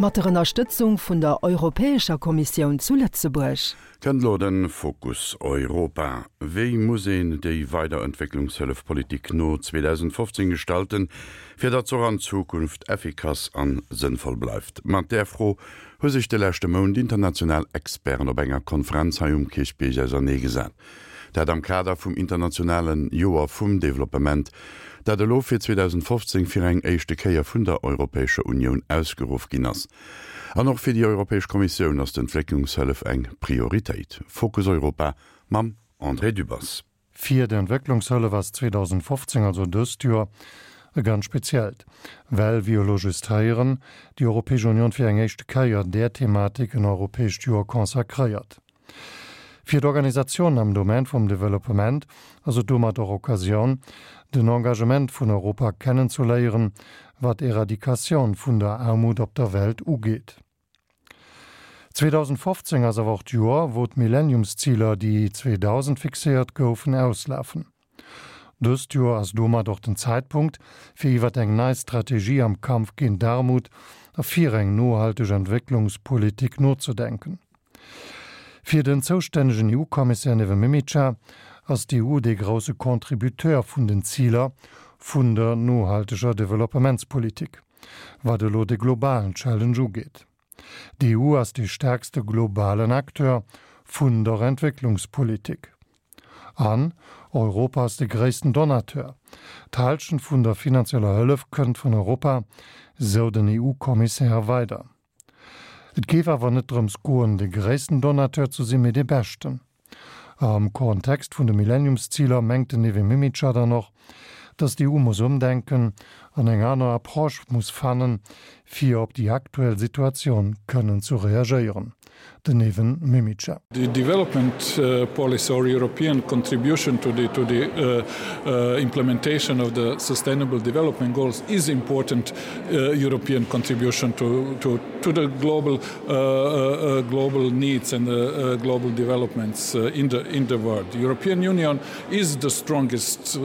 Mat der Ënnerstëtzung vun der Europäescher Kommissioun zu Lëtzebuerg. Kënnt elo de Fokus Europa. Wéi muss een déi weider Entwécklungshëllefpolitik no 2015 gestalten, fir datt se och an Zukunft effikass an sënnvoll bleift? Mat där Fro hu sech de leschte Mount international Experten op enger Konferenz hei um Kierchbierg auserneegesat. Dat am Kader vum internationale Joer vum Developpement, dat elo fir 2015 fir eng éischte Kéier vun der Europäescher Unioun ausgeruff ginn ass. An och fir déi Europäesch Kommissioun ass d'Entwécklungshëllef eng Prioritéit. Fokus Europa mam André Dübbers. Fir d'Entwécklungshëllef ass 2015, also dëst Joer, e ganz speziellt, well, wéi elo just héieren, déi Europäesch Union fir eng éischte Kéier där Thematik en europäescht Joer consacréiert. Fir d'Organisatiounen am Domaine vum Developpement ass et domat och Occasioun, den Engagement vun Europa kennenzuléieren, wat d'Eradikatioun vun der Aarmut op der Welt ugeet. 2015 ass awer och d'Joer, wou d'Millenniumsziler, déi 2000 fixéiert goufen, auslafen. Dëst Joer ass domat och den Zäitpunkt, fir iwwert eng nei Strategie am Kampf géint d'Aarmut a fir eng nohalteg Entwécklungspolitik nozedenken. Fir den zoustännegen EU-Kommissär Neven Mimica ass d'EU dee grousse Contributeur vun den Ziler vun der nohalteger Developpementspolitik, wat elo de globalen Challenge ugeet. D'EU ass dee staarkste globalen Acteur vun der Entwécklungspolitik. An Europa ass de gréissten Donateur. D'Hallschent vun der finanzieller Hëllef kënnt vun Europa, sou den EU-Kommissär weider. Et géif awer net drëms goen, de gréissten Donateur ze sinn, mee dee beschten. Am Kontext vun de Millenniumsziler mengt den Neven Mimica dann och, datt d'EU muss ëmdenken an eng aner Approche muss fannen, fir op déi aktuell Situatioun kënnen zu reagéieren. Den Neven Mimica. The development policy or European contribution to the to the implementation of the sustainable development goals is important European contribution to to to the global global needs and the global developments in the in the world. The European Union is the strongest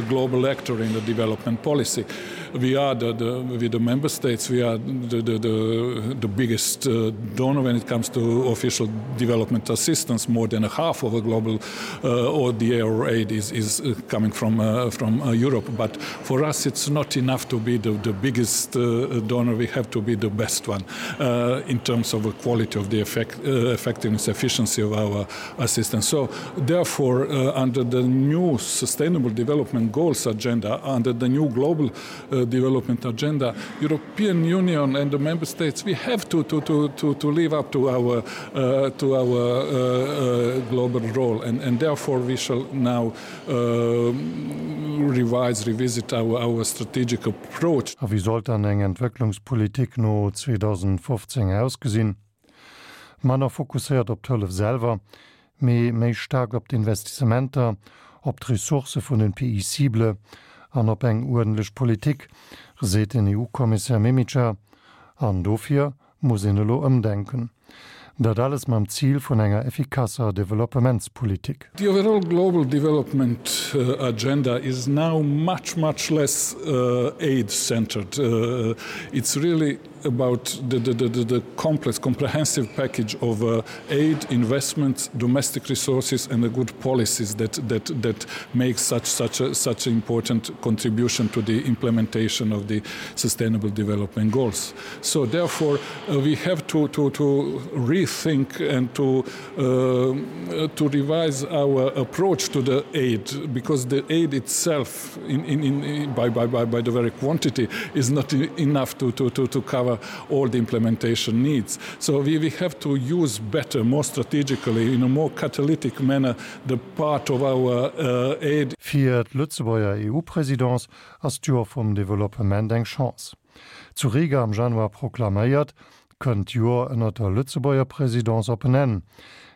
global actor in the development policy. We are the, the with the member states we are the, the, the, the biggest uh, donor when it comes to official development assistance more than a half of a global uh, ODA or aid is, is uh, coming from, uh, from uh, Europe. But for us it's not enough to be the, the biggest uh, donor we have to be the best one uh, in terms of the quality of the effect, uh, effectiveness efficiency of our assistance. So therefore uh, under the new sustainable development goals agenda under the new global uh, development agenda European Union and the member states we have to to to to, to live up to our uh, to our uh, uh, global role and, and therefore we shall now uh, revise revisit our, our strategic approach. A wéi sollt dann eng Entwécklungspolitik no 2015 ausgesinn? Manner fokusséiert op d'Hëllef selwer, mee méi staark op d'Investissementer, op d'Ressourcë vun den Pays cibles an op eng uerdentlech Politik, seet den EU-Kommissär Mimica. An dofir muss een elo ëmdenken. Dat alles mam Zil vun enger effikasser Developpementspolitik. The overall global development agenda is now much, much less aid-centered. It's really about the, the, the, the complex, comprehensive package of uh, aid, investments, domestic resources and the good policies that, that, that make such, such, a, such an important contribution to the implementation of the Sustainable Development Goals. So therefore, uh, we have to, to, to rethink and to, uh, to revise our approach to the aid because the aid itself in, in, in, by, by, by, by the very quantity is not enough to, to, to, to cover all the implementation needs. So we, we have to use better, more strategically, in a more catalytic manner, the part of our uh, aid. Fir d'Lëtzebuerger EU-Présidence ass d'Joer vum Developpement eng Chance. Zu Riga am Januar proklaméiert, kënnt d'Joer ënner der Lëtzebuerger Présidence op en Enn.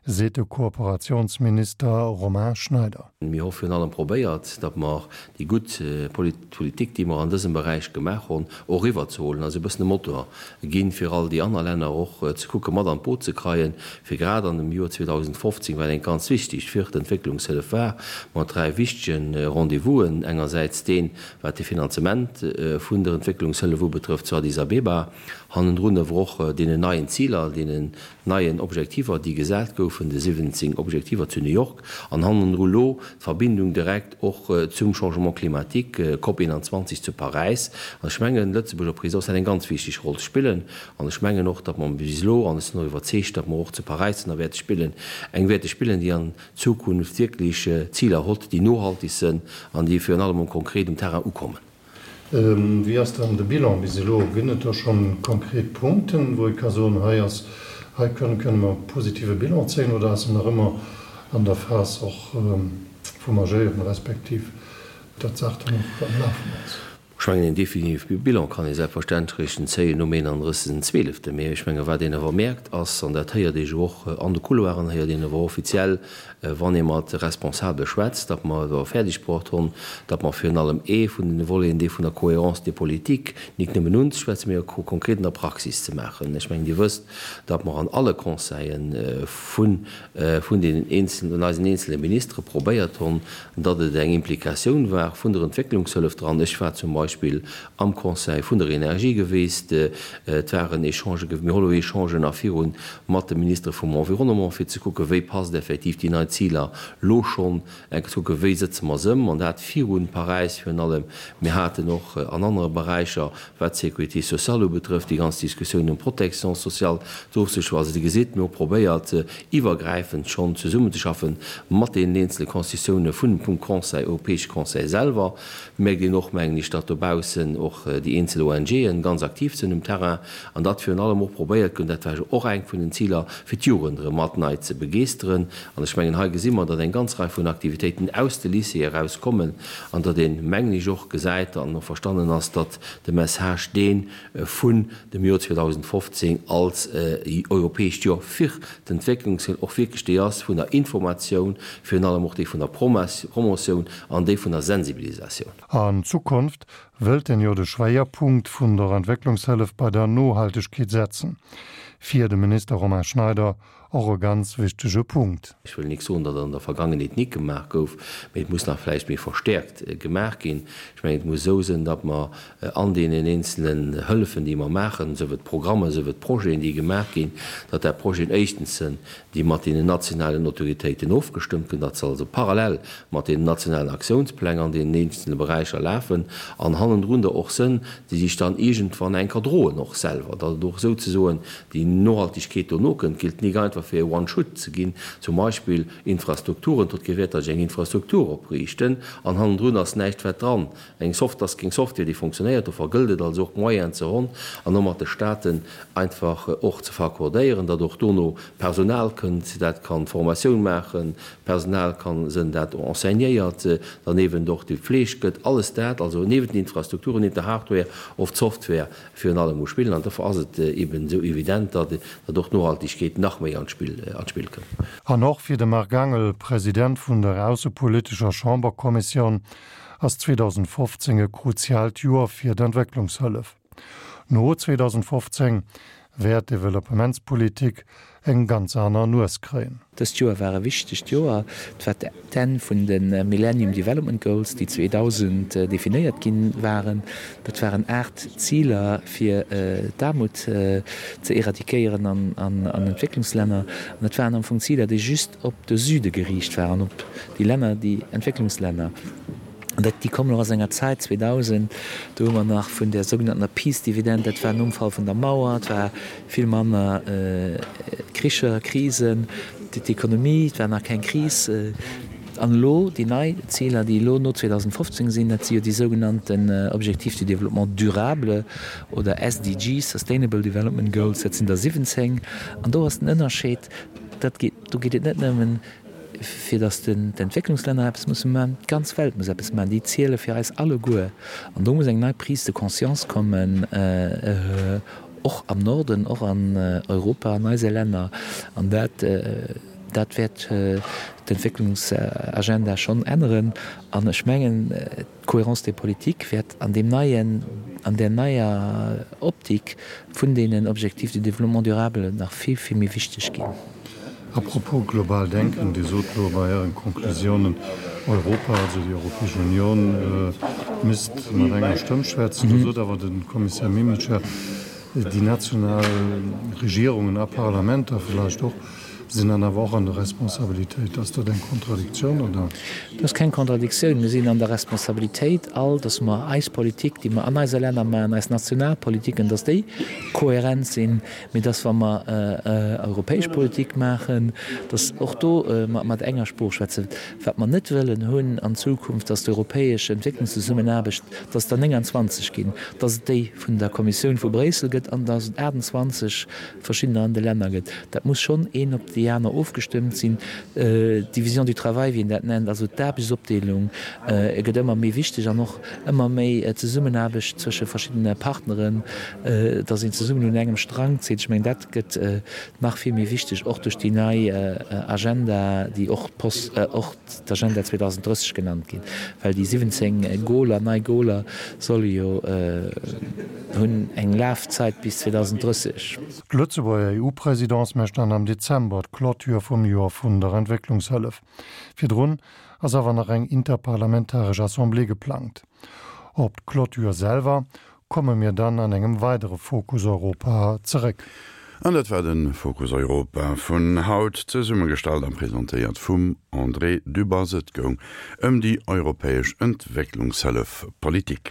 Seet de Kooperatiounsminister Romain Schneider. Mir hu virun allem probéiert, datt mer déi gutt Politik, déi mer an dësem Beräich gemaach hunn, och eriwwerzehuelen, also e bëssen e Motor ginn, fir all déi aner Länner och ze kucke mat an d'Boot ze kreien, fir grad an dem Joer 2015, wat eng ganz wichtegt fir d'Entwécklungshëllef war, mat dräi wichtege Rendez-vousen, engersäits deen, wat de Finanzement vun der Entwécklungshëllef ubetrëfft zu Addis Abeba, hannendrun awer och deenen neien Ziler, deenen neien Objektiver, déi gesat goufen, de 17 Objektiver zu New York, an hannendru lo d'Verbindung direkt och zum Changement climatique, COP 21 zu Paräis. An ech mengen, d'Lëtzebuerger Présidence hat eng ganz wichteg Roll ze spillen. An ech mengen och, datt mer bis elo, an ech sinn och iwwerzeegt, datt mer och zu Paräis dann wäerte spillen, eng wäerte spillen, déi an Zukunft wierklech Ziler hott, déi nohaltig sënn an déi virun allem um konkret um Terrain ukommen. Wéi ass dann de Bilan bis elo? Ginn et do schonn konkret Punkten, wou ee ka soen, hei ass, hei kënne kënne mer e positive Bilan zéien, oder ass en nach ëmmer an der Phas och vum Agéieren, respektiv datt d'Saach dann och am Lafen ass? Ech mengen, een definitive Bilan kann ee selbstverständlech eréischt zéien nom 31. Zweeleften. Mee ech menge wat een awer mierkt ass, an dat héiert ee jo och an de Couloiren, héiert een awer offiziell, Wann ee mat Responsabele schwätzt, datt mer et awer fäerdeg bruecht hunn, datt mer virun allem ee vun den Voleten, dee vun der Cohérence des politiques, nik nëmmen unzeschwätzen, mee och konkret an der Praxis ze maachen. Ech mengen, Dir wësst, datt mer an alle Conseillen vun vun deenen eenzelnen, vun eisen eenzele Ministere probéiert hunn, datt et eng Implikatioun war vun der Entwécklungshëllef dran. Ech war zum Beispill am Conseil vun der Energie geweest. Et waren Echangen, mir hu lo Echangen nach virun mat de Ministere vum Environnement, fir ze kucken, wéi passt effektiv déi nei Ziler lo schonn, eng ze kucken, wéi sëtze mer se ëm, an dat virun Paräis virun allem. Mir haten och an anere Beräicher, wat d'Sécurité sociale ubetrëfft, déi ganz Diskussioun ëm d'Protection sociale d'ofzeschloen. Also Dir gesitt, mir hu probéiert, iwwergräifend schonn zesummenzeschaffen mat deenen eenzele Constitutioune vun vum Conseil, Europäesche Conseil selwer. Mierkt een och, mengen ech, datt dobaussen och déi eenzel ONGen ganz aktiv sinn um Terrain an datt virun allem och probéiert gëtt, dat war jo och eng vun den Ziler, fir d'Jugend erëm mat nei ze begeeschteren. An ech mengen, hei gesi mer, datt eng ganz Rei vun Aktivitéiten aus de Lycéeë erauskommen an datt een, mengen ech, och gesäit an och verstannen ass, datt de Message, dee vun dem Joer 2015 als europäescht Joer fir d'Entwécklungshëllef, och wierklech déi ass vun der Informatioun, virun allem och déi vun der Promotioun an déi vun der Sensibilisatioun. An Zukunft wëllt en jo de Schwéierpunkt vun der Entwécklungshëllef bei der Nohaltegkeet setzen. Fir de Minister Romain Schneider och e ganz wichtege Punkt. Ech wëll nik soen, datt an der Vergangenheet nik gemaach gouf, mee et muss nach vläicht méi verstäerkt gemaach ginn. Ech mengen, et muss esou sinn, datt mer an deenen eenzelen Hëllefen, déi mer maachen, sief et Programmen, sief et Projeten, déi gemaach ginn, datt dat Projeten éischtens sinn, déi mat deenen nationalen Autoritéiten ofgestëmmt ginn, datt se also parallel mat deenen nationalen Aktiounspläng an deenen eenzele Beräicher lafen an hannendrun der och sënn, déi sech dann iergendwann enker droen och selwer, datt et och souzesoen déi Nohaltegkeet dono kënnt, gilt nik einfach fir e One-Shoot ze ginn, zum Beispill Infrastrukturen, dot gewäert, datt ech eng Infrastruktur opriichten an hannendrun ass näischt wat dran, eng Soft ass keng Software déi fonctionnéiert. Dofir gëllt et also och Moyenen ze honn an och mat de Staaten einfach och ze verkordéieren, datt och dono Personal kënnt, dat kann Formatioun maachen, Personal kann sënn dat enseignéiert, derniewent och déi Fleeg gëtt, alles dat, also niewent den Infrastrukturen, niewent der Hardware och d'Software virun allem muss spillen. An dofir ass et eben esou evident, datt och d'Nohaltegkeet nach méi an d'Spill kënnt. An och fir de Marc Angel, President vun der aussepolitescher Chamberkommissioun, ass 2015 e kruziaalt Joer fir d'Entwécklungshëllef. No 2015 wäert d'Developpementspolitik eng ganz aner Nues kréien. Dëst Joer war e wichtegt Joer. Et war d'Enn vun de Millennium Development Goals, déi 2000 definéiert gi waren. Dat waren 8 Ziler, fir d'Aarmut ze eradiquéieren an Entwécklungslänner. An dat waren am Fong Ziler, déi just op de Süde geriicht waren, op déi Länner, déi Entwécklungslänner. An dat, déi kommen och aus enger Zäit, 2000, do hu mer nach vun där sougenanntener Peace Dividend, dat war nom Fall vun der Mauer, et war vill manner Kricher, Krisen, d'Ekonomie, et war nach keng Kris. An elo déi nei Ziler, déi elo no 2015 sinn, dat si jo déi sougenannten Objectifs du développement durable oder SDGs, Sustainable Development Goals, dat sinn der 17. An do ass den Ënnerscheed, dat geet, do geet et net nëmmen, fir datt d'Entwécklungslänner eppes musse maachen, d'ganz Welt muss eppes maachen, déi ziele fir eis alleguer. An do muss eng nei Prise de conscience kommen, och am Norden, och an Europa, an eise Länner. An dat. Dat wäert d'Entwécklungsagenda schonn änneren. An ech mengen, d'Cohérence des politiques wäert an deem neien, an där neier Optik vun deenen Objectifs de développement durable nach vill, vill méi wichteg ginn. A propos global denken, Dir sot elo bei Ären Konklusiounen, Europa, also déi Europäesch Union, misst mat enger Stëmm schwätzen. Do sot awer de Kommissär Mimica, déi national Regierungen a Parlamenter vläicht och, sinn dann awer och an der Responsabilitéit. Ass dat eng Kontradiktioun, oder? Dat ass keng Kontradiktioun. Mir sinn an der Responsabilitéit all, dass mer eis Politik, déi mer an eise Länner maachen, eis national Politiken, dass déi kohärent sinn, mee dass, wa mer europäesch Politik maachen, dass och do mer mat enger Sprooch schwätzen. Wat mer net wëllen hunn an Zukunft, dass d'europäesch Entwécklungszesummenaarbecht, dass et der 29 ginn, dass et déi vun der Kommissioun vu Bréissel gëtt an dass et 28 verschiddener an de Länner gëtt. Dat muss schonn een op déi aner ofgestëmmt sinn. D'Division du travail, wéi een dat nennt, also d'Aarbechtsopdeelung, gëtt ëmmer méi wichteg an och ëmmer méi Zesummenaarbecht zwësche verschiddene Partneren, dass een zesummen un engem Strang zitt. Ech mengen, dat gëtt nach vill méi wichteg, och duerch déi nei Agenda, déi och d'Post, och d'Agenda 2030 genannt ginn, well déi 17 Goaler, nei Goaler solle jo hunn eng Lafzeit bis 2030. D'Lëtzebuerger EU-Presidence mécht dann am Dezember d'Clôture vum Joer vun der Entwécklungshëllef. Virdrun ass awer nach eng interparlamentaresch Assemblée geplangt. Op d'Clôture selwer komme mir dann an engem weidere Fokus Europa zeréck. An dat war de Fokus Europa vun haut, zesummegestallt a presentéiert vum André Dübbers. Et goung ëm déi europäesch Entwécklungshëllefpolitik.